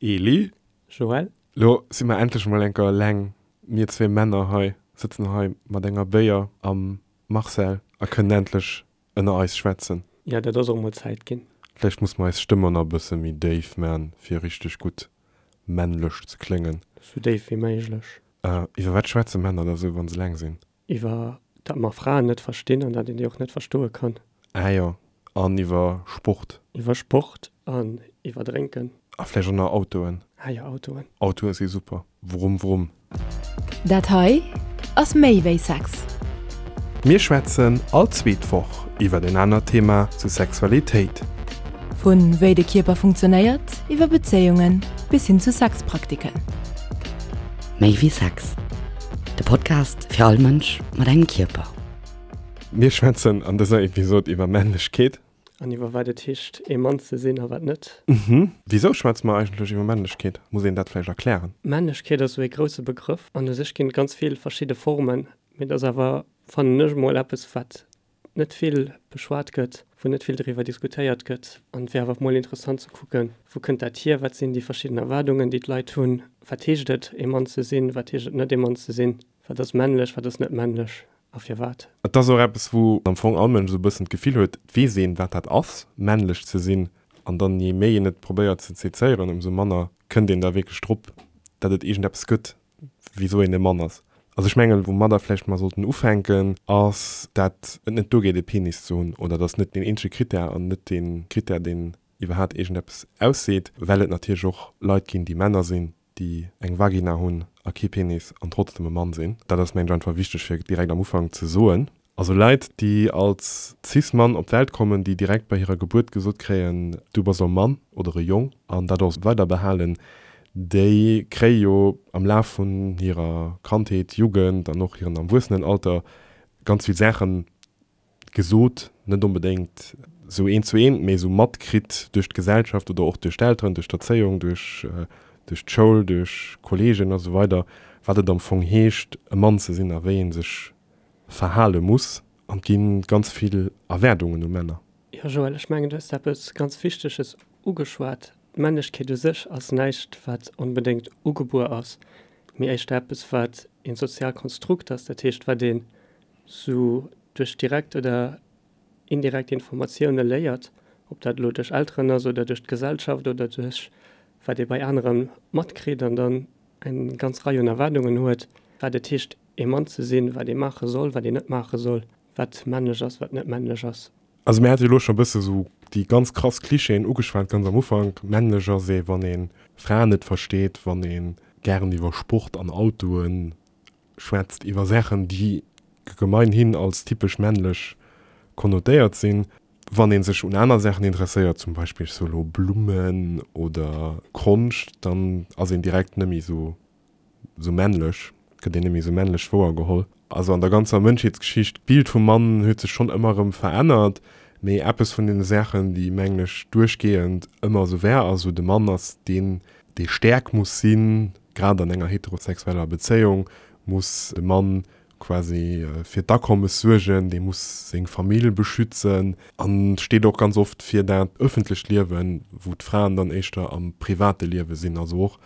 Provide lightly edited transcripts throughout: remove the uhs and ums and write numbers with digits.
Eli. Joël. Lo si mer endlech mol enker eleng, mir zwee Männer hei, sëtzen hei mat enger Béier am Marcel a kënnen endlech ënner eis schwätzen. Jo, dat ass och mol Zäit ginn. Vläicht muss mer eis Stëmm och nach e bësse méi déif man, fir richteg gutt männlech ze kléngen. Sou déif wéi méiglech. Iwwer wat schwätze Männer da sou, wa se eleng sinn? Iwwer dat mer Fraen net verstinn an dat een déi och net verstoe kann. Ah jo, an iwwer Sport. Iwwer Sport an iwwer Drénken. A vläicht och nach Autoen. Ah jo, Autoen. Autoe si super. Wrumm wrumm. Dat hei ass méi wéi Sex. Mir schwätzen all zweet Woch iwwer en anert Thema zu Sexualitéit. Vu wéi de Kierper funktionéiert, iwwer Bezéiungen bis hin zu Sexpraktiken. Méi wéi Sex, de Podcast fir all Mënsch mat engem Kierper. Mir schwätzen an dëser Episod iwwer Männlechkeet. An iwwer wat et heescht ee Mann ze sinn a wat net. Wisou schwätze mer eigentlech iwwer Männlechkeet? Muss een dat vläicht erklären? Männlechkeet ass esou ee grousse Begrëff an u sech ginn et ganz vill verschidde Formen, mee et ass awer, fannen ech emol, eppes wat net vill beschwat gëtt, wou net vill driwwer diskutéiert gëtt. An et wär awer mol interessant ze kucken, wou kënnt dat hier, wat sinn déi verschidden Erwaardungen, déi d'Leit hunn, wat heescht et, ee Mann ze sinn, wat heescht et net, ee Mann ze sinn, wat ass männlech, wat ass net männlech a firwat. Et ass och eppes, wou am Fong all Mënsch esou e bëssen d'Gefill huet, et weess een, wat dat ass, männlech ze sinn. An dann, je méi een et probéiert ze sezéieren, ëmsou manner kënnt een da wierklech drop, datt et iergendeppes gëtt, wisou een e Mann ass. Also ech mengen, woumadder vläicht mer sollten ufänken, ass, dat et net duergeet e Penis ze hunn, oder dass net deen eenzege Critère an net dee Critère, deen iwwerhaat iergendeppes ausseet, well et natierlech och Leit ginn, déi Männer sinn, déi eng Vagina hunn a kee Penis an trotzdem e Mann sinn. Dat ass, mengen ech, einfach wichteg fir direkt am Ufank ze soen. Also Leit, déi als Cis-Mann op d'Welt kommen, déi direkt bei hirer Gebuert gesot kréien, du bass e Mann oder e Jong an dat och weider behalen, déi kréie jo am Laf vun hirer Kandheet, Jugend an och hiren Erwuessenenalter ganz vill Saache gesot, net onbedéngt esou eent zu eent, mee esou matkritt duerch d'Gesellschaft oder och duerch d'Elteren, duerch d'Erzéiung, duerch duerch d'Schoul, duerch Kolleegen a sou weider, wat et am Fong heescht, e Mann ze sinn a wéi ee sech verhale muss an et gi ganz vill Erwaardungen u Männer. Jo Joël, ech mengen du hues eppes ganz Wichteges ugeschwat. D'Männlechkeet u sech ass näischt wat onbedéngt ugebuer ass, mee éischter eppes wat een soziaalt Konstrukt ass, dat heescht wat een sou duerch direkt oder indirekt Informatioune léiert, ob dat elo duerch Elteren ass oder duerch d'Gesellschaft oder duerch wat ee bei anere matkritt an dann eng ganz Rei un Erwaardungen huet, wat et heescht ee Mann ze sinn, wat ee maache soll, wat een net maache soll, wat männlech ass, wat net männlech ass. Also mir hate jo elo scho e bësse sou déi ganz krass Klischeeën ugeschwat ganz am Ufank, männlech ass ee wann ee Fraen net versteet, wann ee gären iwwer Sport an Autoe schwätzt, iwwer Saachen déi gemeinhin als typesch männlech konnotéiert sinn, wann ee sech un aner Saachen interesséiert, zum Beispill ech soe lo Blummen oder Konscht, dann ass een direkt net méi sou sou männlech, gëtt een net méi sou männlech wouergeholl. Also an der ganzer Mënschheetsgeschicht, d'Bild vum Mann huet sech schonn ëmmer erëm verännert, mee eppes vun deene Saachen, déi mengen ech duerchgehend ëmmer esou war, ass esou, de Mann ass deen, dee staark muss sinn, grad an enger heterosexueller Bezéiung muss de Mann quasi fir d'Akommes suergen, dee muss seng Famill beschützen an steet och ganz oft fir dat ëffentlecht Liewen, wou d'Fraen dann éischter am private Liewe sinn. Also och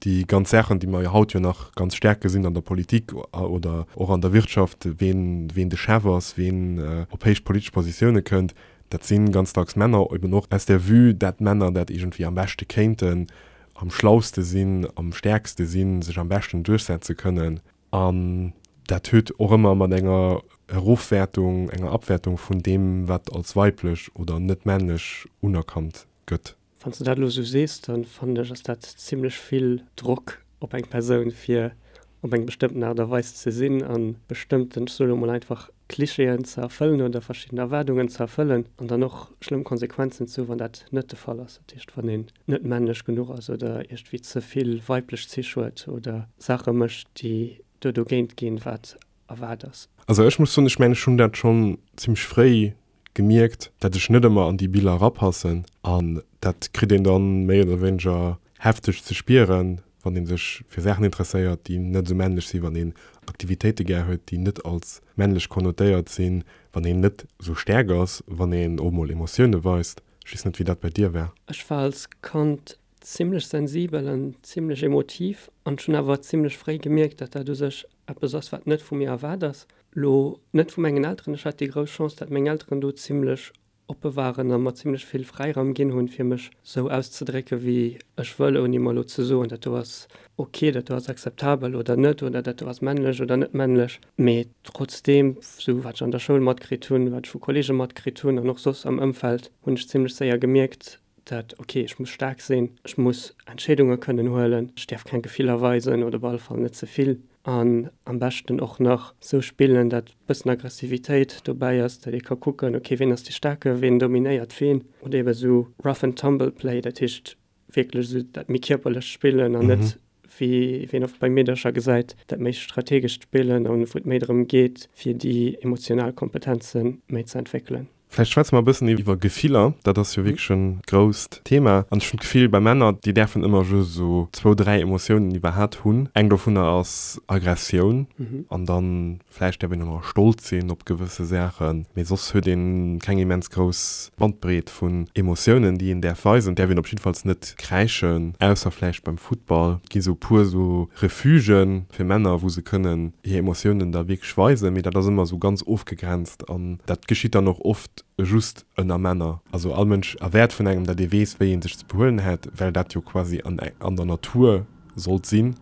déi ganz Saachen, déi mer jo haut jo nach ganz staark gesinn an der Politik oder och an der Wirtschaft, ween, ween de Chef ass, ween op héich politesch Positioune kënnt, dat si ganz dacks Männer, eben och aus der Vue, dat Männer dat iergendwéi am beschte kéinten, am schlauste sinn, am stäerkste sinn, sech am beschten duerchsetze kënnen. An dat huet och ëmmer mat enger Erofwäertung, enger Abwäertung vun deem, wat als weiblech oder net männlech unerkannt gëtt. Wann s de dat elo esou sees, da fannen ech, ass dat zimlech vill Drock op eng Persoun, fir op eng bestëmmten Aart a Weis ze sinn a bestëmmten, ech soe lo mol einfach, Klischeeën ze erfëllen oder verschidden Erwaardungen ze erfëllen an dann och schlëmm Konsequenzen ze hu wann dat net de Fall ass. Dat heescht, wann een net männlech genuch ass oder iergendwéi ze vill weiblech Zich huet oder Saache mécht, déi do dogéint ginn, wat erwaart ass. Also ech muss soen, ech mengen, ech hunn dat schonn zimmlech fréi gemierkt, dat ech net ëmmer an déi Biller erapassen an dat kritt een dann méi oder wéineger hefteg ze spieren, wann een sech fir Saachen interesséiert, déi net esou männlech sinn, wann een Aktivitéite gär huet, déi net als männlech konnotéiert sinn, wann een net esou staark ass, wann een och mol Emotioune weist. Ech weess net, wéi dat bei dir war. Ech war als Kand. zimmlech sensibel an zimmlech emotiv an ech hunn awer zimmlech fréi gemierkt, dat dat u sech eppes ass, wat net vu mir erwaart ass. Lo net vu mengen Elteren, ech hat déi grouss Chance, dat meng Elteren do zimmlech oppe waren a mer zimmlech vill Fräiraum ginn hunn, fir mech sou auszedrécke wéi ech wëll, ouni mer elo ze soen, dat do ass ok, dat do ass akzeptabel oder net, oder dat do ass männlech oder net männlech. Mee trotzdeem, sou wat ech an der Schoul matkritt hunn, wat ech vu Kollege matkritt hunn an och soss am Ëmfeld, hunn ech zimmlech séier gemierkt, dat ok, ech muss staark sinn, ech muss Entscheedunge kënnen huelen, ech däerf keng Gefiller weisen oder op alle Fall net ze vill an am beschten och nach sou spillen, dat bëssen Aggressivitéit dobäi ass, dat ee ka kucken, ok, ween ass dee Staarke, ween dominéiert ween oder ebe sou rough and tumble play, dat heescht wierklech sou dat méi kierperlecht Spillen an net wéi een oft bei Meedercher gesäit, dat méi strategescht Spillen an wou et méi drëm geet, fir déi emotional Kompetenze méi ze entwéckelen. Vläicht schwätze mer e bëssen iwwer Gefiller. Dat ass jo wierklech e grousst Thema. An ech hunn d'Gefill, bei Männer, déi däerfen ëmmer just esou zwou, dräi Emotiounen iwwerhat hunn. Eng dovunner ass Aggressioun. An dann vläicht däerf een och nach stolz sinn op gewësse Saachen. Mee soss huet ee keng immens grouss Bandbreet vun Emotiounen, déi een däerf weisen. Et däerf een op jiddefalls net kräischen, ausser vläicht beim Futtball. Et gi sou e puer esou Refugen fir Männer, wou se kënnen hir Emotiounen da wierklech weisen. Mee dat ass ëmmer esou ganz ofgegrenzt. An dat geschitt dann och oft just ënner Männer. Also all Mënsch erwäert vun engem, datt ee weess, wéi ee sech ze behuelen hätt, well dat jo quasi an an der Natur sollt sinn.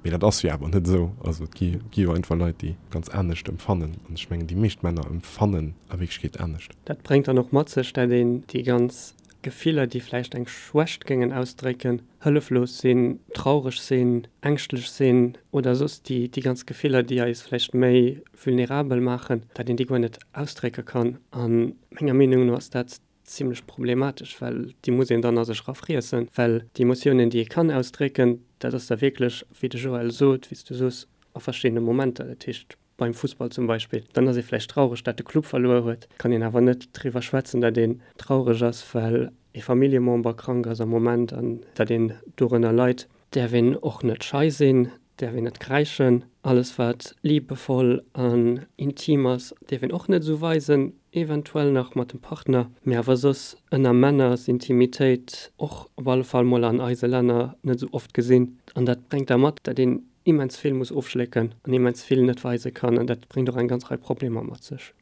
Mee dat ass jo awer net esou. Also et gi gi jo einfach Leit, déi ganz anescht emfannen. An ech mengen, déi meescht Männer emfannen a Wierklechkeet anescht. Dat bréngt dann och mat sech, dat een déi ganz Gefiller, déi vläicht eng Schwächt géingen ausdrécken, hëlleflos sinn, traureg sinn, ängschtlech sinn oder soss déi déi ganz Gefiller, déi eis vläicht méi vulnerabel maachen, dat een déi guer net ausdrécke kann. A menger Meenung no ass dat zimlech problematesch, well déi muss een dann a sech erafriessen, well déi Emotiounen, déi ee kann ausdrécken, dat ass da wierklech, wéi de Joël sot, wéi s du soos, a verschiddene Momenter. Dat heescht, beim Fussball zum Beispill, dann ass ee vläicht traureg, dat de Club verluer huet, kann een awer net driwwer schwätzen, dat een traureg ass, well ee Familljemember krank ass am Moment an dat een dorënner leit. Däerf een och net schei sinn, däerf een net kräischen. Alles wat liebevoll an intim ass, däerf een och net esou weisen, eventuell nach mat dem Partner, mee awer soss ënner Männer ass Intimitéit och op alle Fall mol an eise Länner net esou oft gesinn. An dat bréngt da mat, dat een immens vill muss ofschlécken an immens vill net weise kann an dat bréngt och eng ganz Rei Problemer mat sech.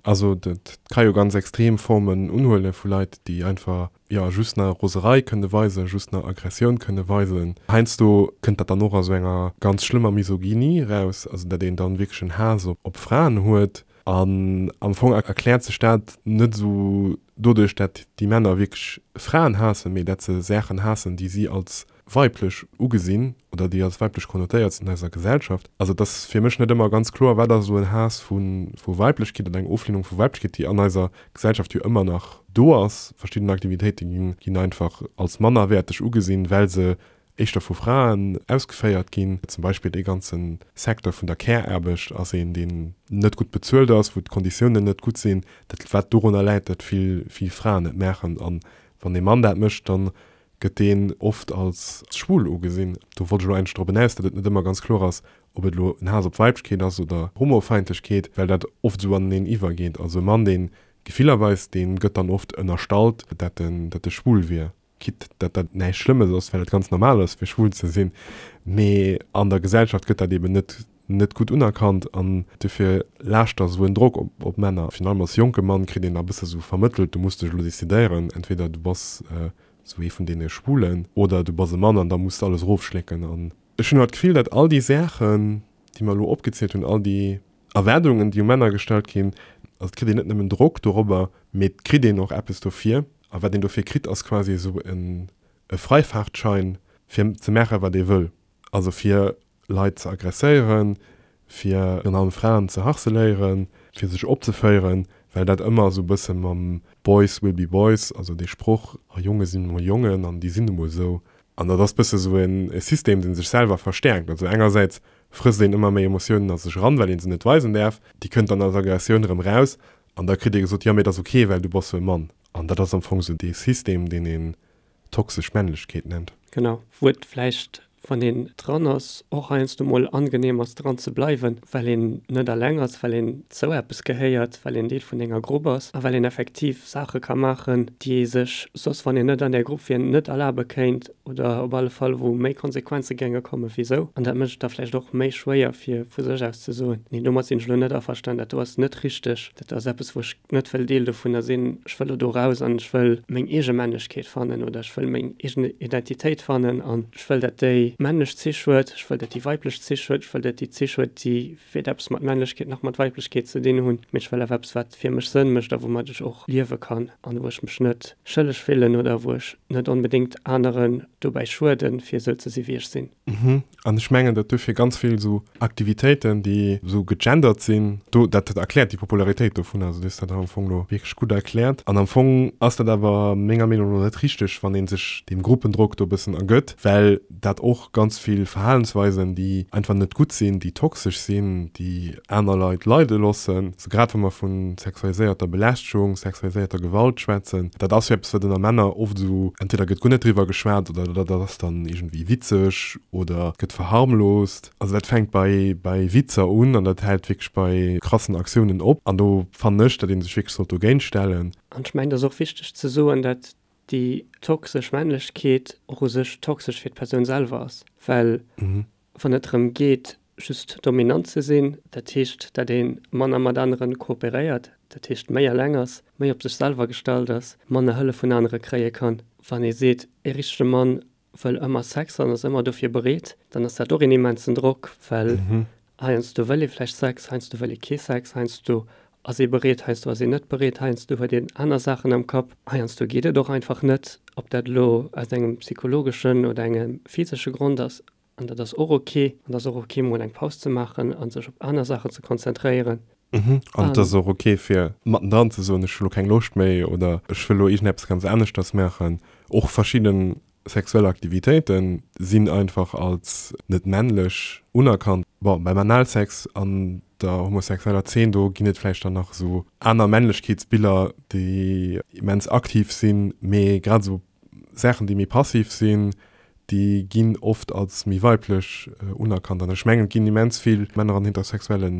Also dat ka jo ganz extrem Formen unhuele vu Leit, déi einfach, jo, just nach Roserei kënne weisen, just nach Aggressioun kënne weisen. Heiansdo kënnt dat dann och a sou enger ganz schlëmmer Misogynie eraus, also dat een dann wierklech en Haass op Fraen huet. An am Fong erkläert sech dat net esou doduerch, dat déi Männer wierklech Fraen haassen, mee dat se Saachen haassen, déi si als weiblech ugesinn oder déi als weiblech konnotéiert sinn an eiser Gesellschaft. Also et ass fir mech net ëmmer ganz kloer, wat ass elo en Haass vu Weiblechkeet oder eng Oflehnung vu Weiblechkeet, déi an eiser Gesellschaft jo ëmmer nach do ass. Verschidden Aktivitéite ginn einfach als mannerwäerteg ugesinn, well se éischter vu Fraen ausgeféiert ginn. Zum Beispill dee ganze Secteur vun der Care-Aarbecht ass een, deen net gutt bezuelt ass, wou d'Konditiounen net gutt sinn, dat wat dorunner läit, datt vill, vill Fraen et maachen. A wann ee Mann dat mécht, da gëtt deen oft als schwul ugesinn. Do wollt ech elo eigentlech drop enaus, datt et net ëmmer ganz kloer ass, ob et elo en Haass op Weiblechkeet ass oder Homofeindlechkeet, well dat oft esou aneneen iwwergeet. Also e Mann, dee Gefiller weist, dee gëtt dann oft ënnerstallt, dat en, dat e schwul wier. Quitte dat dat näischt Schlëmmes ass, well et ganz normal ass, fir schwul ze sinn, mee an der Gesellschaft gëtt dat eben net net gutt unerkannt an dofir laascht da sou en Drock op op Männer. Virun allem als jonke Mann kritt een da bësse sou vermëttelt, du muss dech elo decidéieren, entweder du bass sou ee vun deene Schwulen oder du bass e Mann an da muss de alles erofschlécken. An ech hunn awer d'Gefill, datt all déi Saachen, déi mer elo opgezielt hunn, all déi Erwaardungen, déi u Männer gestallt ginn, also et kritt een net nëmmen Drock dorobber, mee et kritt een och eppes dofir. A wat een dofir kritt, ass quasi esou e Freifahrtschein, fir ze maachen, wat ee wëll. Also fir Leit ze aggresséieren, fir virun allem Fraen ze harceléieren, fir sech opzeféieren, well dat ëmmer esou e bësse mam Boys will be boys, also dee Sproch, a Jonge sinn emol Jongen an déi sinn emol esou. An dat ass bësse esou e System, dee sech selwer verstäerkt. Also engersäits frësst een ëmmer méi Emotiounen a sech eran, well ee se net weisen däerf, déi kënnt dann als Aggressioun erëm raus an da kritt ee gesot, jo mee et ass ok, well du bass jo e Mann. An dat ass am Fong esou dee System, deen een toxesch Männlechkeet nennt. Genau, wou et vläicht. Wann een dran ass, och heiansdo mol angenehm ass dran ze bleiwen, well een net alleng ass, well een zou eppes gehéiert, well een Deel vun enger Grupp ass a well een effektiv Saache ka maachen, déi ee sech soss, wann een net an där Grupp wier, net erlabe kéint oder op alle Fall wou méi Konsequenze géinge komme wéi sou. An dat mécht et da vläicht och méi schwéier fir vu sech aus ze soen, nee domat sinn ech elo net averstan, dat do ass net richteg, dat ass eppes wou ech net wëll Deel dovunner sinn, ech wëll elo do raus an ech wëll meng eege Männlechkeet fannen oder ech wëll meng eegen Identitéit fannen an ech wëll dat déi männlech Zich huet, ech wëll dat déi weiblech Zich huet, ech wëll dat déi Zich huet, déi weder eppes mat Männlechkeet nach mat Weiblechkeet ze dinn hunn, mee ech wëll awer eppes wat fir mech Sënn mécht a woumat ech och liewe kann an wou ech mech net schëlleg fillen oder wou ech net onbedéngt aneren dobäi schueden, fir esou ze si wéi ech sinn. Mhm. An ech mengen, datt duerfir ganz vill esou Aktivitéiten, déi esou gegendert sinn, do, dat erkläert déi Popularitéit dovun. Also du hues dat am Fong elo wierklech gutt erkläert. An am Fong ass dat awer menger Meenung no net richteg, wann ee sech deem Gruppendrock do e bëssen ergëtt, well dat och ganz vill Verhalensweisen, déi einfach net gutt sinn, déi toxesch sinn, déi aner Leit leide loossen, sou grad wa mer vu sexualiséierter Belästegung, sexualiséierter Gewalt schwätzen, dat ass jo eppes, wat ënner Männer oft esou, entweder gëtt guer net driwwer geschwat oder dat ass dann iergendwéi witzeg oder gëtt verharmloost. Also dat fänkt bei bei Witzer un an dat hält wierklech bei krassen Aktiounen op. An do fannen ech, datt ee sech wierklech sollt dogéint stellen. An ech mengen, et ass och wichteg ze soen, dat déi toxesch Männlechkeet och u sech toxesch fir d'Persoun selwer ass, well wann et drëm geet, just dominant ze sinn, dat heescht, dat ee manner mat anere kooperéiert, dat heescht méi eleng ass, méi op sech selwer gestallt ass, manner Hëllef vun anere kréie kann. Wann ee seet, ee richtege Mann wëll ëmmer Sex an ass ëmmer dofir bereet, dann ass dat och een immensen Drock, well heiansdo wëll ee vläicht Sex, heiansdo wëll ee kee Sex, heiansdo ass ee bereet, heiansdo ass een net bereet, heiansdo huet een aner Saachen am Kapp, heiansdo geet et och einfach net, ob dat elo aus engem psychologeschen oder engem physesche Grond ass. An dat ass och ok. An et ass och ok, mol eng Paus ze maachen a sech op aner Saachen ze konzentréieren. An et ass och ok, fir mattendran ze soen, ech hu lo keng Loscht méi oder ech wëll lo iergendeppes ganz aneschters maachen. Och verschidde sexuell Aktivitéite sinn einfach als net männlech unerkannt. Bon, beim Analsex an der homosexueller Zeen, do ginn et vläicht dann nach esou aner Männlechkeetsbiller, déi immens aktiv sinn, mee grad esou Saachen, déi méi passiv sinn, déi ginn oft als méi weiblech unerkannt. An ech mengen, et ginn immens vill Männer an heterosexuelle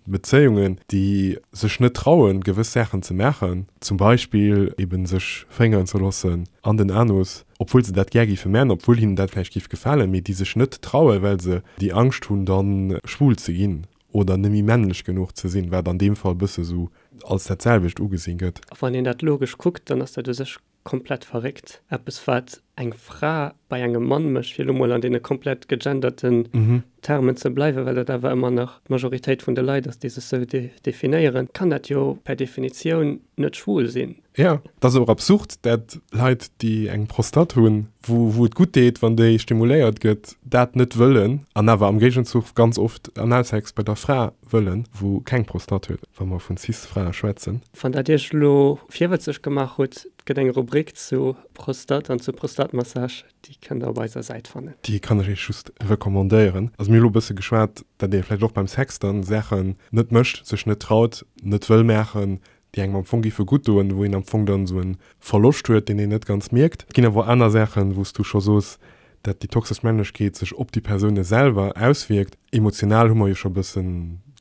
Bezéiungen, déi sech net trauen, gewëss Saachen ze maachen, zum Beispill eben sech féngeren ze loossen an den Anus, obwuel se dat gär géife maachen, obwuel hinnen dat vläicht géif gefalen, mee déi sech net trauen, well se déi Angscht hunn, da schwul ze ginn oder net méi männlech genuch ze sinn, wat an deem Fall e bësse sou als dat selwecht ugesinn gëtt. A wann een dat logesch kuckt, dann ass dat u sech komplett verréckt. Eppes wat eng Fra bei engem Mann mécht, fir elo mol an deene komplett gegenderten Termen ze bleiwen, well dat awer ëmmer nach d'Majoritéit vun de Leit ass, déi sech sou definéieren, kann dat jo per Definitioun net schwul sinn. Jo, et ass och absurd, dat Leit, déi eng Prostate hunn, wou wou et gutt deet, wann déi stimuléiert gëtt, dat net wëllen an awer am Géigenzuch ganz oft Analsex bei der Fra wëllen, wou keng Prostate huet, wa mer vun Cis-Frae schwätzen. Wann dat Iech elo virwëtzeg gemaach hutt, et gëtt eng Rubrik zu Prostate an zu Prostatmassage, déi kënnt der op eiser Säit fannen. Déi kann ech Iech just recommandéieren. Also mir hu elo e bësse geschwat, dat ee vläicht och beim Sex dann Saachen net mécht, sech net traut, net wëll maachen, déi engem am Fong géife gutt doen, wou een am Fong dann esou e Verloscht huet, deen een net ganz mierkt. Et ginn awer och aner Saachen, wou s du scho soos, dat déi toxesch Männlechkeet sech op déi Persoune selwer auswierkt. Emotional hu mer jo scho e bësse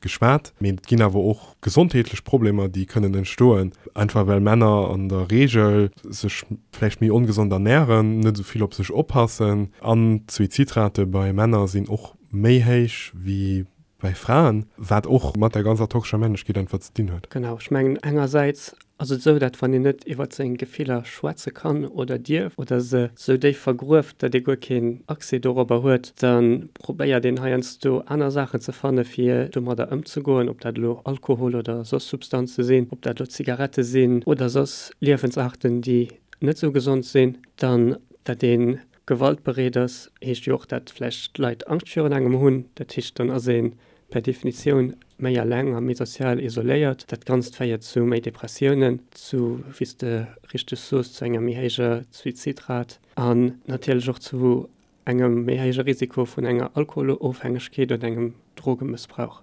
geschwat, mee et ginn awer och gesondheetlech Problemer, déi kënnen entstoen, einfach well Männer an der Reegel sech vläicht méi ongesond ernären, net esou vill op sech oppassen an d'Suizidrate bei Männer sinn och méi héich wéi bei Fraen, wat och mat der ganzer toxescher Männlechkeet einfach ze dinn huet. Genau, ech mengen engersäits ass et esou, dat wann een net iwwert seng Gefiller schwätze kann oder dierf oder se esou déif vergrueft, dat ee guer keen Accès dorobber huet, da probéiert een heiansdo aner Saachen ze fanne fir domadder ëmzegoen, ob dat elo Alkohol oder soss Substanze sinn, ob dat elo Zigarette sinn oder soss Liewensarten, déi net esou gesond sinn, dann dat ee Gewaltbereet ass, heescht jo och, dat vläicht d'Leit Angscht virun engem hunn. Dat heescht, dann ass ee per Definitioun méi eleng a méi sozial isoléiert. Dat Ganzt féiert zu méi Depressiounen, zu, wéi s de richteg soos, zu enger méi héijer Suizidrat an natierlech och zu engem méi héije Risiko vun enger Alkoholofhängegkeet oder engem Drogemëssbrauch.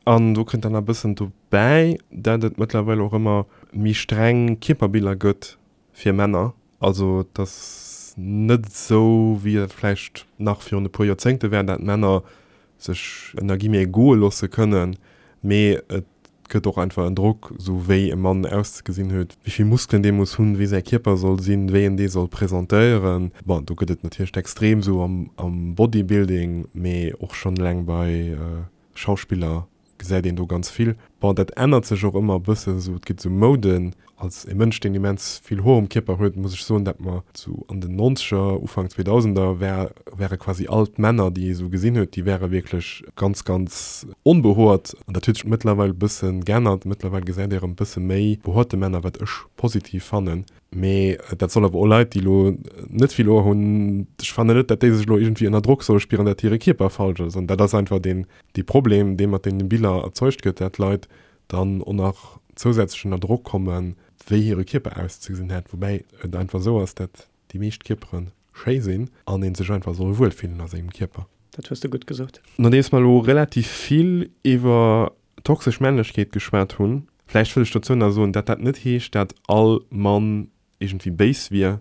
An do kënnt dann nach e bëssen dobäi, dat et mëttlerweil och ëmmer méi streng Kierperbiller gëtt fir Männer. Also et ass. net esou, wéi et vläicht nach virun e puer Joerzéngte war, dat Männer sech ënner Guillemets goe loosse kënnen, mee et gëtt och einfach en Drock, esou wéi e Mann auszegesinn huet, wéi vill Muskelen dee muss hunn, wéi säi Kierper soll sinn, wéi en dee soll presentéieren. Bon, do gëtt et natierlech d'Extrem esou am Bodybuilding, mee och schonn eleng bei Schauspiller gesäit een do ganz vill. Bon, dat ännert sech och ëmmer e bëssen, esou et gëtt esou Mouden. Als e Mënsch, deen immens vill Hoer um Kierper huet, muss ech soen, dat mer sou an den Nonzeger, Ufank Zweedausender war, ware quasi all d'Männer, déi ee sou gesinn huet, déi ware wierklech ganz, ganz onbehoert. An dat huet sech mëttlerweil e bësse geännert. Mëttlerweil gesäit ee erëm e bësse méi behoerte Männer, wat ech positiv fannen. Mee dat soll awer och Leit, déi elo net vill Hoer hunn, ech fannen net, dat déi sech elo iergendwéi ënner Drock solle spieren, dat hire Kierper falsch ass. An dat ass einfach deen, dee Problem, dee mat deene Biller erzeugt gëtt, dat Leit dann och nach zousätzlech ënner Drock kommen, wéi hire Kierper auszegesinn hätt, woubäi et einfach esou ass, dat déi meescht Kierpere schéi sinn an ee sech einfach soll wuel fillen a sengem Kierper. Dat hues de gutt gesot. Nodeems mer elo relativ vill iwwer toxesch Männlechkeet geschwat hunn, vläicht wëll ech dozou nach soen, dat dat net heescht, dat all Mann iergendwéi béis wier,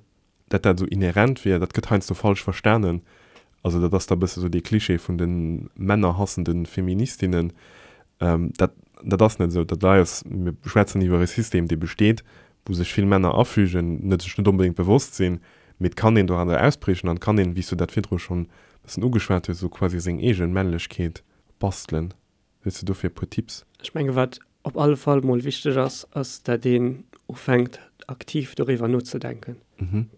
dat dat esou inhärent wier, dat gëtt heiansdo falsch verstanen. Also dat ass da e bësse sou dee Klischee vun de männerhassende Feministinnen. Dat, dat ass net esou. Dat hei ass, mir schwätzen iwwer e System, dee besteet, wou sech vill Männer afügen, net sech net onbedéngt bewosst sinn, mee et kann een doranner ausbriechen an et kann een, wéi s du dat virdru schonn e bëssen ugeschwat hues, esou quasi seng eege Männlechkeet bastelen. Hues de dofir e puer Tipps? Ech menge wat op alle Fall mol wichteg ass, ass dat een ufänkt aktiv doriwwer nozedenken.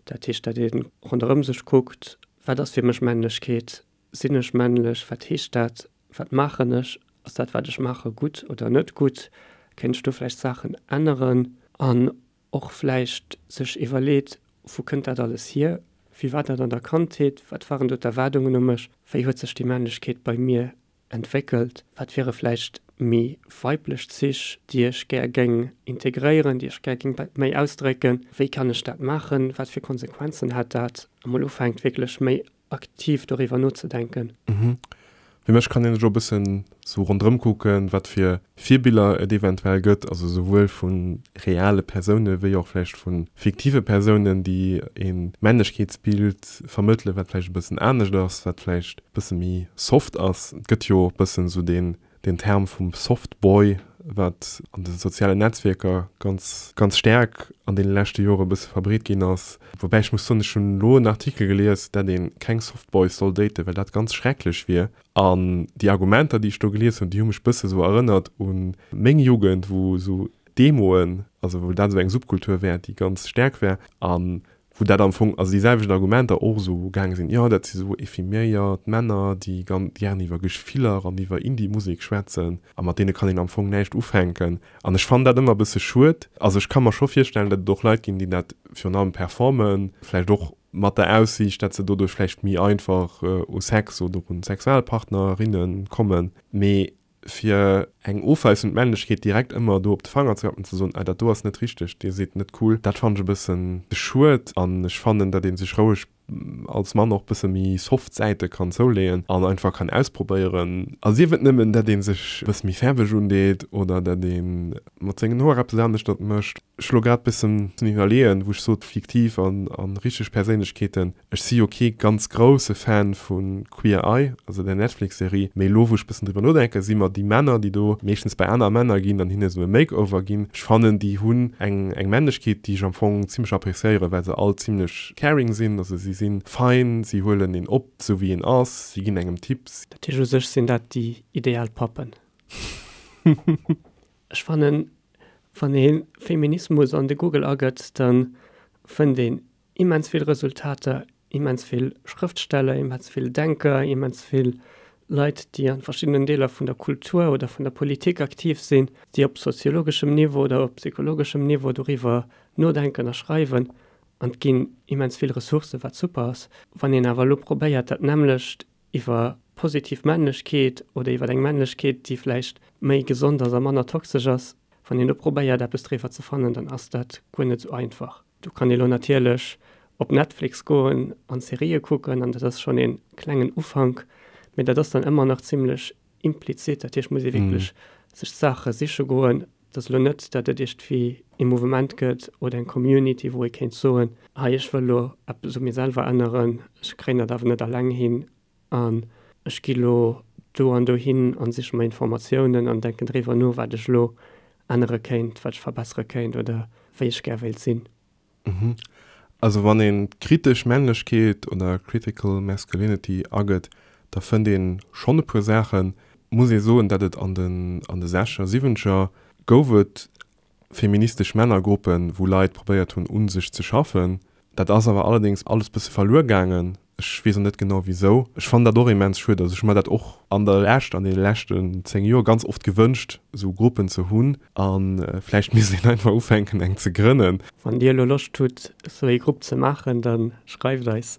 Dat heescht, dat ee ronderëm sech kuckt, wat ass fir mech Männlechkeet, sinn ech männlech, wat heescht dat, wat maachen ech, ass dat wat ech maache gutt oder net gutt, kéint ech do vläicht Saachen änneren? An och vläicht sech iwwerleet, wou kënnt dat alles hier, wéi war dat an der Kandheet, wat waren do d'Erwaardungen u mech, wéi huet sech déi Männlechkeet bei mir entwéckelt? Wat wiere vläicht méi weiblech Zich, déi ech gär géing integréieren, déi ech gär géing méi ausdrécken? Wéi kann ech dat maachen? Wat fir Konsequenzen hätt dat? A mol ufänkt wierklech méi aktiv doriwwer nozedenken. Fir mech kann een sech och e bëssen sou ronderëm kucken, wat fir Virbiller et eventuell gëtt, also souwuel vu reale Persoune wéi och vläicht vu fiktive Persounen, déi e Männlechkeetsbild vermëttelen, wat vläicht e bëssen anescht ass, wat vläicht e bësse méi soft ass. Et gëtt jo e bëssen esou deen deen Term vum Soft Boy, wat an de sozialen Netzwierker ganz, ganz staark an deene leschte Jore e bësse verbreet ginn ass. Woubäi ech muss soen, ech hunn elo en Artikel gelies, dat ee keng Soft Boys soll daten, well dat ganz schrecklech wier. An déi Argumenter, déi ech do gelies hunn, déi hu mech bësse sou erënnert u meng Jugend, wou sou d'Emoen, also wou dat esou eng Subkultur war, déi ganz staark war. An wou dat am Fong, also déi selwecht Argumenter och esou gaange sinn, jo dat si sou ephiméiert Männer, déi ganz gären iwwer Gefiller an iwwer Indie-Musek schwätzen a mat deene kann een am Fong näischt ufänken. An ech fannen dat ëmmer e bësse schued. Also ech ka mer scho virstellen, datt et och Leit ginn, déi dat virun allem performen, vläicht och mat der Aussiicht, datt se doduerch vläicht méi einfach u Sex oder un Sexualpartnerinne kommen, mee fir eng ofweisend Männlechkeet direkt ëmmer do op de Fanger ze klappen, ze soen, ah dat do ass net richteg, dir sidd net cool, dat fannen ech e bëssen schued. An ech fannen, datt ee sech roueg als Mann och bësse méi soft Säite kann zouleeën an einfach kann ausprobéieren. A sief et nëmmen, datt ee sech e bësse méi fäerweg undeet oder datt ee mat sengen Hoer eppes aneschtert mécht. Ech elo grad bëssen iwwerleeën, wou ech sot fiktiv an richteg Perséinlechkeeten. Ech si jo kee ganz grousse Fan vu Queer Eye, also der Netflix-Serie, mee elo wou ech bëssen driwwer nodenken, si mer déi Männer, déi do meeschtens bei aner Männer ginn an hinne sou e Makeover ginn, ech fannen déi hunn eng eng Männlechkeet, déi ech am Fong zimmlech appréciéieren, well se all zimmlech caring sinn, also si si fein, si huelen een op sou wéi een ass, si ginn engem Tipps. Dat heescht, u sech sinn dat déi ideal Pappen. Ech fannen, wann ee Feminismus an de Google agëtt, da fënnt een immens vill Resultater, immens vill Schrëftsteller, immens vill Denker, immens vill Leit, déi an verschiddenen Deeler vun der Kultur oder vun der Politik aktiv sinn, déi op soziologeschem Niveau oder op psychologeschem Niveau doriwwer nodenken a schreiwen. An et ginn immens vill Ressourcen, wat super ass. Wann een awer elo probéiert, dat nämmlecht iwwer positiv Männlechkeet oder iwwer eng Männlechkeet, déi vläicht méi gesond ass a manner toxesch ass, wann een do probéiert eppes driwwer ze fannen, dann ass dat guer net esou einfach. Do kann ee lo natierlech op Netflix goen an Serië kucken an dat ass schonn ee klengen Ufank, mee dat ass dann ëmmer nach zimmlech implizit. Dat heescht, muss ee wierklech sech d'Saache siche goen. Et ass elo net, datt et iergendwéi ee Mouvement gëtt oder eng Community, wou ee kéint soen, hei ech wëll elo eppes u mir selwer änneren, ech kréien dat awer net alleng hin an ech gi lo do an dohin an siche mer Informatiounen an denken driwwer no, wat ech elo ännere kéint, wat ech verbessere kéint oder wéi ech gär wéilt sinn. Also wann een kritesch Männlechkeet oder critical masculinity agëtt, da fënnt een schonn e puer Saachen. Muss ee soen, dat et an den an de sechzeger, siwwenzeger gouf et feministesch Männergruppen, wou Leit probéiert hunn un sech ze schaffen. Dat ass awer allerdéngs alles bësse verluer gaangen. Ech weess och net genau wisou. Ech fannen dat och immens schued. Also ech hu mer dat och an der Lescht, an deene leschten 10 Joer ganz oft gewënscht, esou Gruppen ze hunn. A vläicht misst een einfach ufänken eng ze grënnen. Wann Dir elo Loscht hutt esou ee Grupp ze maachen, da schreift eis.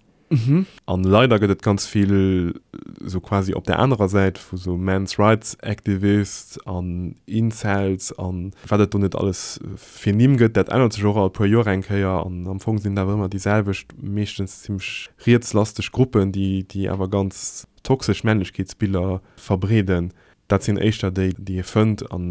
An leider gëtt et ganz vill esou quasi op der anerer Säit vu sou Men's Rights Activists an Incels an wat et do net alles fir Nimm gëtt. Dat ännert sech och all puer Joer eng Kéier an am Fong sinn et awer ëmmer déi selwecht, meeschtens zimmlech rietslasteg Gruppen, déi déi awer ganz toxesch Männlechkeetsbiller verbreeden. Dat sinn éischter déi, déi ee fënnt an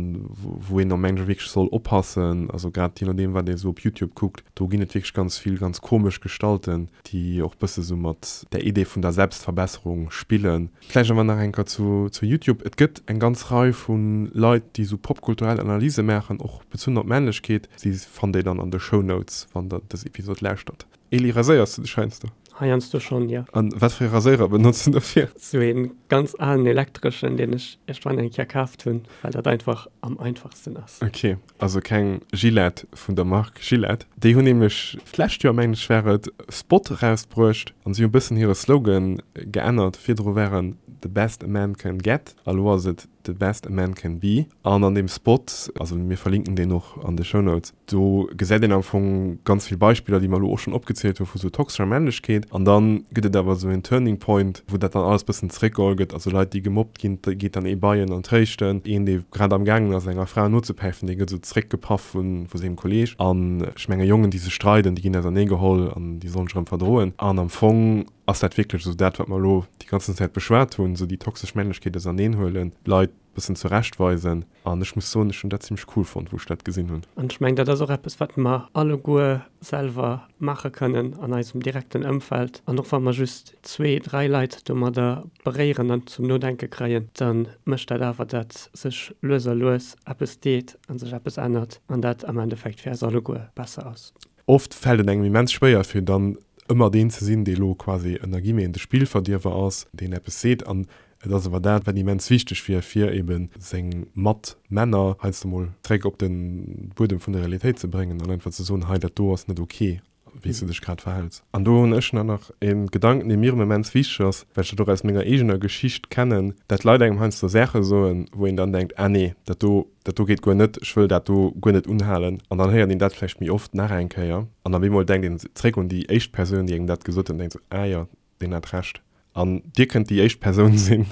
wou een am Englesche wierklech soll oppassen. Also grad jee nodeem, wat ee sou op Youtube kuckt, do ginn et wierklech ganz vill ganz komesch Gestalten, déi och bësse sou mat der Idee vun der Selbstverbesserung spillen. Vläicht awer nach eng Kéier zu zu YouTube. Et gëtt eng ganz Rei vu Leit, déi sou popkulturell Analyse maachen, och bezunn op Männlechkeet. Si fannt Dir dann an de Shownotes, wann Der dës Episod lauschtert. Eli, raséiers du dech heiansdo? Heiansdo schonn, jo. An wat fir ee Raséirer benotz du dofir? Sou een ganz alen elektreschen, deen ech iergendwann eng Kéier kaaft hunn, well dat einfach am einfachsten ass. Ok, also keng Gillette vun der Mark Gillette. Déi hunn nämlech d'lescht Joer, mengen ech war et, Spot erausbruecht an si hu bëssen hire Slogan geännert. Virdru war en The best a man can get a lo ass et The best a man can be. An an deem Spot, also mir verlinken deen och an de Shownotes, do gesäit een am Fong ganz vill Beispiller, déi mer elo och schonn opgezielt hu vu sou toxescher Männlechkeet. An da gëtt et awer esou een Turning Point, wou dat dann alles bëssen zeréckgeholl gëtt. Also Leit, déi gemobbt ginn, da geet dann ee bei en an tréischten. Een, dee grad am gaangen ass, enger Fra nozepäifen, dee gëtt esou zeréckgepaff vu sengem Kolleeg. An ech menge Jongen, déi sech streiden, déi ginn auserneegeholl an déi sollen sech erëm verdroen. An am Fong ass dat wierklech esou dat, wat mer elo déi ganzen Zäit beschwat hunn, esou déi toxesch Männlechkeet auserneenhuelen, d'Leit bëssen zurechtweisen. An ech muss soen, ech hunn dat zimmlech cool fonnt, wou ech dat gesinn hunn. An ech mengen, dat ass och eppes, wat mer alleguer selwer maache kënnen an eisem direkten Ëmfeld. An och wa mer just zwee, dräi Leit domadder beréieren an zum Nodenke kréien, da mécht dat awer, datt sech lues a lues eppes deet a sech eppes ännert an dat am Endeffekt fir eis alleguer besser ass. Oft fält et engem immens schwéier, fir dann ëmmer deen ze sinn, dee lo quasi ënner Guillemeten de Spillverdierwer ass, deen eppes seet. An et ass awer dat, wat immens wichteg wier, fir ebe seng Matmänner heiansdo mol zréck op de Buedem vun der Realitéit ze bréngen an einfach ze soen, hei dat do ass net ok, wéi s du dech grad verhäls. An do hunn ech nach e Gedanken, dee mir immens wichteg ass, well ech dat och aus menger eegener Geschicht kennen, dat Leit engem heiansdo Saache soen, wou een dann denkt, ah nee, dat do, dat do geet guer net, ech wëll dat do guer net unhalen. An dann héiert een dat vläicht méi oft nach eng Kéier an op eemol denkt een zréck un déi éischt Persoun, déi engem dat gesot huet an denkt sou, ah jo, deen hat Recht. An Dir kënnt déi éischt Persoun sinn.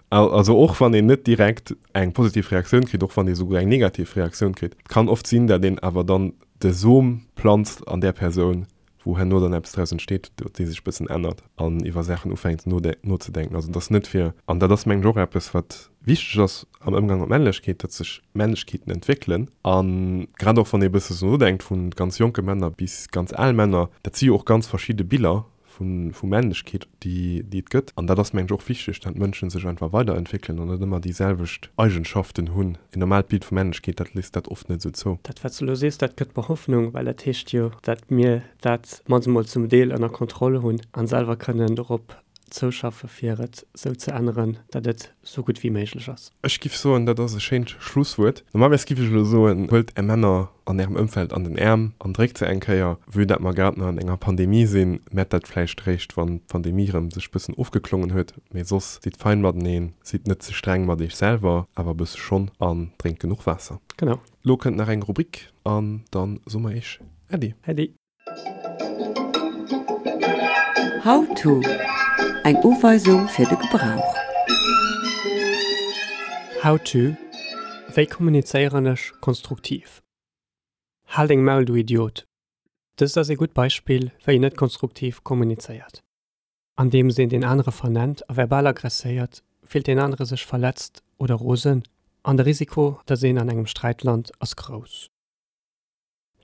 Also och wann een net direkt eng positiv Reaktioun kritt, och wann ee souguer eng negativ Reaktioun kritt, et kann oft sinn, dat een awer dann de Som planzt an där Persoun, wou herno dann eppes draus entsteet, déi sech e bëssen ännert an iwwer Saachen ufänkt nozedenken. Also et ass net fir, an dat ass mengen ech och eppes wat wichteg ass am Ëmgang mat Männlechkeet, datt sech Männlechkeeten entwéckelen a grad och wann ee e bësse sou nodenkt, vu ganz jonke Männer bis ganz al Männer, dat si jo och ganz verschidde Biller vu Männlechkeet, déi et gëtt. An dat ass, mengen ech, och wichteg, dat Mënschen sech einfach weiderentwéckelen an net ëmmer déi selwecht Eigenschaften hunn. En normaalt Bild vu Männlechkeet, dat léisst dat oft net esou zou. Dat, wat s de elo sees, dat gëtt mer Hoffnung, well dat heescht jo, dat mir dat mannst emol zum Deel ënner Kontroll hunn a selwer kënnen dorop zouschaffe fir et sou ze änneren, dat et sou gutt wéi méiglech ass. Ech giff soen, dat ass e schéint Schlusswuert. Normalerweis giff ech elo soen, huelt är Männer an ärem Ëmfeld an den Äerm an dréckt se eng Kéier. Vue dat mer grad nach an enger Pandemie sinn, mett dat vläicht réischt wann d'Pandemie rëm sech bëssen ofgeklongen huet. Mee soss, sidd fein mateneen, sidd net ze streng mat iech selwer, awer e bësse schonn, an drénkt genuch Waasser. Genau. Lo kënnt nach eng Rubrik an dann soe mer iech Äddi. Äddi. How to, Eng Uweisung fir de Gebrauch. How to, Wéi kommunizéieren ech konstruktiv? Hal deng Maul du Idiot! Dëst ass ee gutt Beispill wéi een net konstruktiv kommunizéiert. Andeems een deen anere vernennt a verbal aggresséiert, fillt deen anere sech verletzt oder rosen. An de Risiko, datt een an engem Sträit lant, ass grouss.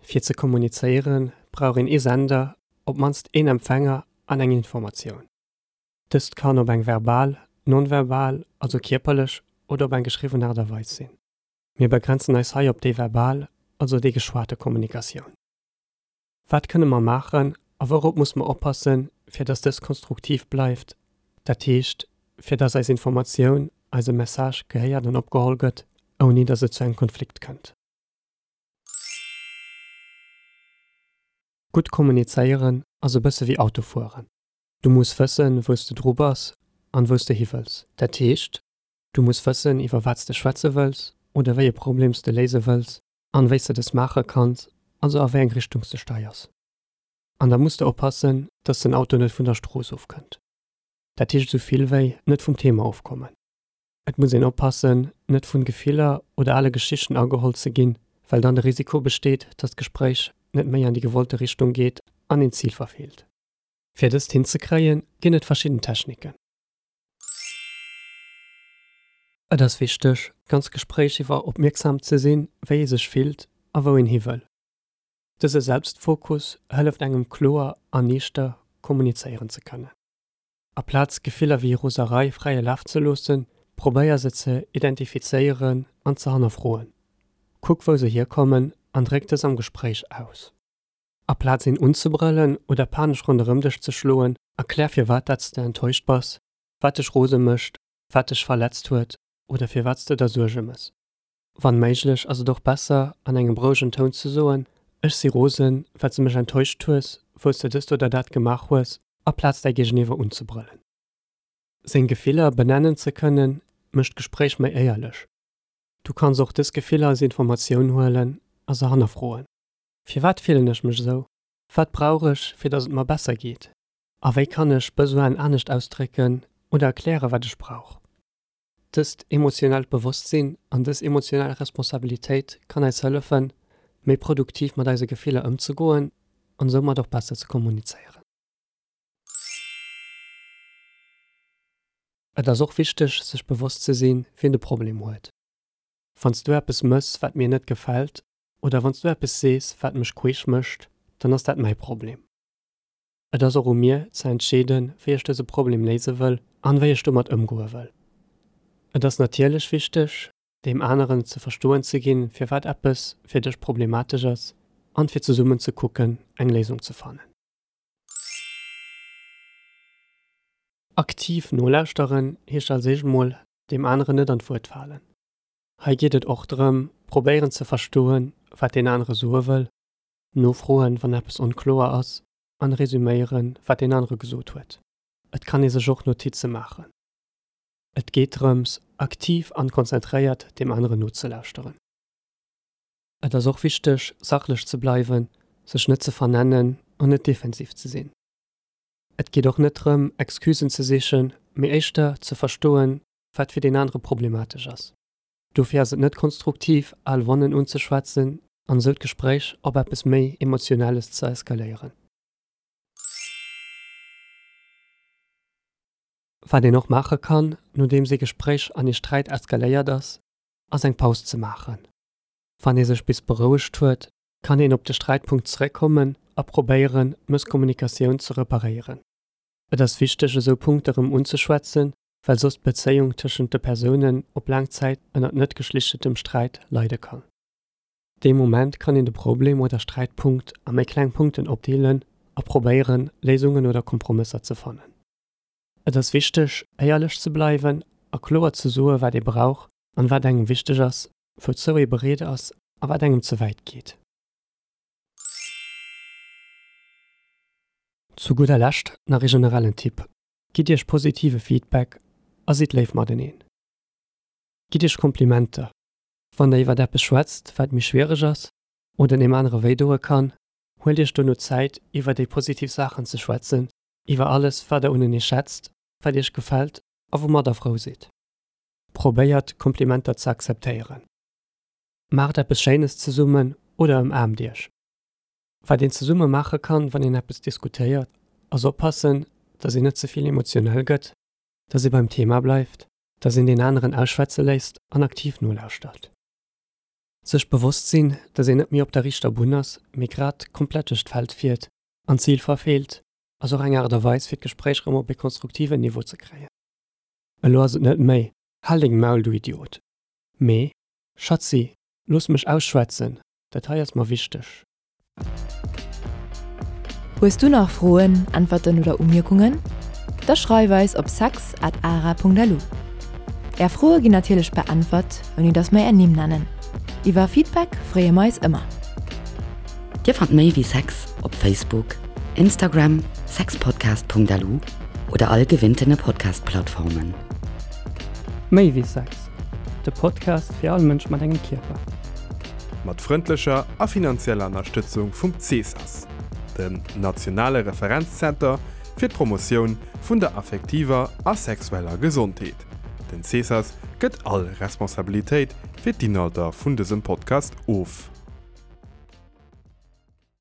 Fir ze kommunizéieren, brauch een ee Sender, op d'mannst een Empfänger an eng Informatioun. Dëst kann op eng verbal, non-verbal, also kierperlech, oder op eng geschriwwen Aart a Weis sinn. Mir begrenzen eis hei op déi verbal, also déi geschwate Kommunikatioun. Wat kënne mer maachen a wourop muss mer oppassen, fir dass dës konstruktiv bleift, dat heescht, fir dass eis Informatioun, eise Message gehéiert an opgeholl gëtt, ouni dass et zu engem Konflikt kënnt? Gutt kommunizéieren ass e bësse wéi Auto fueren. Du muss wëssen, wou s de dru bass an wou s de hi wëlls. Dat heescht, du muss wëssen, iwwer wat s de schwätze wëlls oder wéi e Problem s de léise wëlls an wéi s de dës maache kanns, also a wéi eng Richtung s de steiers. An da muss de oppassen, dass den Auto net vun der Strooss ofkënnt. Dat heescht esou vill wéi, net vum Thema ofkommen. Et muss een oppassen, net vun Gefiller oder ale Geschichten ageholl ze ginn, well dann de Risiko besteet, dass d'Gespréich net méi an déi gewollte Richtung geet an een d'Zil verfeelt. Fir dëst hinzekréien, ginn et verschidden Techniken. Et ass wichteg, d'ganz Gespréich iwwer opmierksam ze sinn, wéi ee sech fillt a wou een hi wëll. Dëse Selbstfokus hëlleft engem kloer an niichter kommunizéieren ze kënnen. Aplaz Gefiller wéi Roserei fräie Laf ze loossen, probéier se ze identifizéieren an ze hannerfroen. Kuck wou se hierkommen an dréck dës am Gespréich aus. Aplaz een unzebrëllen oder panesch ronderëm dech ze schloen, erklär firwat dat s de enttäuscht bass, wat dech rose mécht, wat dech verletzt huet oder firwat s de der Suerge mëss. Wann méiglech ass et och besser an engem rouegen Toun ze soen, Ech si rosen, well s de mech enttäuscht hues, wou s de dëst oder dat gemaach hues, aplaz däi Géigeniwwer unzebrëllen. Seng Gefiller benennen ze kënnen, mécht d'Gespréich méi éierlech. Du kanns och dës Gefiller als Informatioun huelen a se hannerfroen. Firwat fillen ech mech esou? Wat brauch ech, fir datt et mer besser geet? A wéi kann ech Besoinen anescht ausdrécken oder erklären, wat ech brauch? Dëst emotionellt Bewosstsinn an dës emotionell Responsabilitéit kann eis hëllefen, méi produktiv mat eise Gefiller ëmzegoen an soumat och besser ze kommunizéieren. Et ass och wichteg, sech bewosst ze sinn, wien de Problem huet. Wann s du eppes mëss, wat mir net gefält, oder wann s du eppes sees, wat mech queesch mécht, dann ass dat mäi Problem. Et ass och u mir ze entscheeden, wéi ech dëse Problem léise wëll an wéi ech domat ëmgoe wëll. Et ass natierlech wichteg, deem aneren ze verstoen ze ginn, firwat eppes fir dech problematesch ass an fir zesummen ze kucken, eng Léisung ze fannen. Aktiv nolauschteren heescht als éischt mol, deem aneren net an d'Wuert falen. Hei geet et och drëm, probéieren ze verstoen, wat deen anere soe wëll, nofroen, wann eppes onkloer ass an resuméieren, wat deen anere gesot huet. Et kann ee sech och Notize maachen. Et geet drëms, aktiv an konzentréiert deem aneren nozelauschteren. Et ass och wichteg, sachlech ze bleiwen, sech net ze vernennen an net defensiv ze sinn. Et geet och net drëm, Excusen ze sichen, mee éischter ze verstoen, wat fir deen anere problematesch ass. Dofir ass et net konstruktiv, al Wonnen unzeschwätzen an esou d'Gespréich op eppes méi Emotionelles ze eskaléieren. Wat een och maache kann, nodeems ee Gespréich an ee Sträit eskaléiert ass, ass eng Paus ze maachen. Wann ee sech bis berouegt huet, kann een op de Sträitpunkt zeréckkommen a probéieren, d'Mësskommunikatioun ze reparéieren. Et ass wichteg, esou Punkte rëm unzeschwätzen, well soss d'Bezéiung tëschent de Persounen op laang Zäit ënnert net geschlichtetem Sträit leide kann. Dee Moment kann een de Problem oder Sträitpunkt a méi kleng Punkten opdeelen a probéieren, Léisungen oder Kompromësser ze fannen. Et ass wichteg, éierlech ze bleiwen a kloer ze soe wat ee brauch an wat engem wichteg ass, wouzou ee bereet ass a wat engem ze wäit geet. Zu gudder Lescht nach ee generellen Tipp, Gitt iech positive Feedback a sidd léif mateneen. Gitt iech Komplimenter, wann der iwwert eppes schwätzt, wat méi schwiereg ass oder deem anere wéi doe kann. Huelt iech dono Zäit, iwwer déi positiv Saachen ze schwätzen, iwwer alles, wat der unenee schätzt, wat iech gefält a woumat der frou sidd. Probéiert, Komplimenter ze akzeptéieren. Maacht eppes Schéines zesummen oder ëmaarmt iech. Wat een zesumme maache kann, wann een eppes diskutéiert, ass oppassen, dass een net ze vill emotionell gëtt, dass ee beim Thema bleift. Dass een deen aneren ausschwätze léisst an aktiv nolauschtert. Sech bewosst sinn, dass een net méi op der riichter Bunn ass, mee grad komplett duerch d'Feld fiert an d'Zil verfeelt, ass och eng Aart a Weis fir d'Gespréich rëm op ee konstruktiven Niveau ze kréien. Elo ass et net méi, Hal deng Maul, du Idiot! Mee, Schatzi, looss mech ausschwätzen, dat hei ass mer wichteg. Hues du nach Froen, Äntwerten oder Umierkungen? Da schreif eis op sex at ara.lu. Är Froe ginn natierlech beäntwert, ouni dass mer är Nimm nennen. Iwwer Feedback freeë mer eis ëmmer. Dir fannt méi wéi Sex op Facebook, Instagram, sexpodcast.lu oder all gewinntene Podcast-Plattformen. Méi wéi Sex, de Podcast fir all Mënsch mat engem Kierper. Mat frëndlecher a finanzieller Ënnerstëtzung vum CESAS, dem nationale Referenzzenter fir d'Promotioun vun der affektiver a sexueller Gesondheet. Den CESAS gëtt all Responsabilitéit fir d'Inhalter vun dësem Podcast of.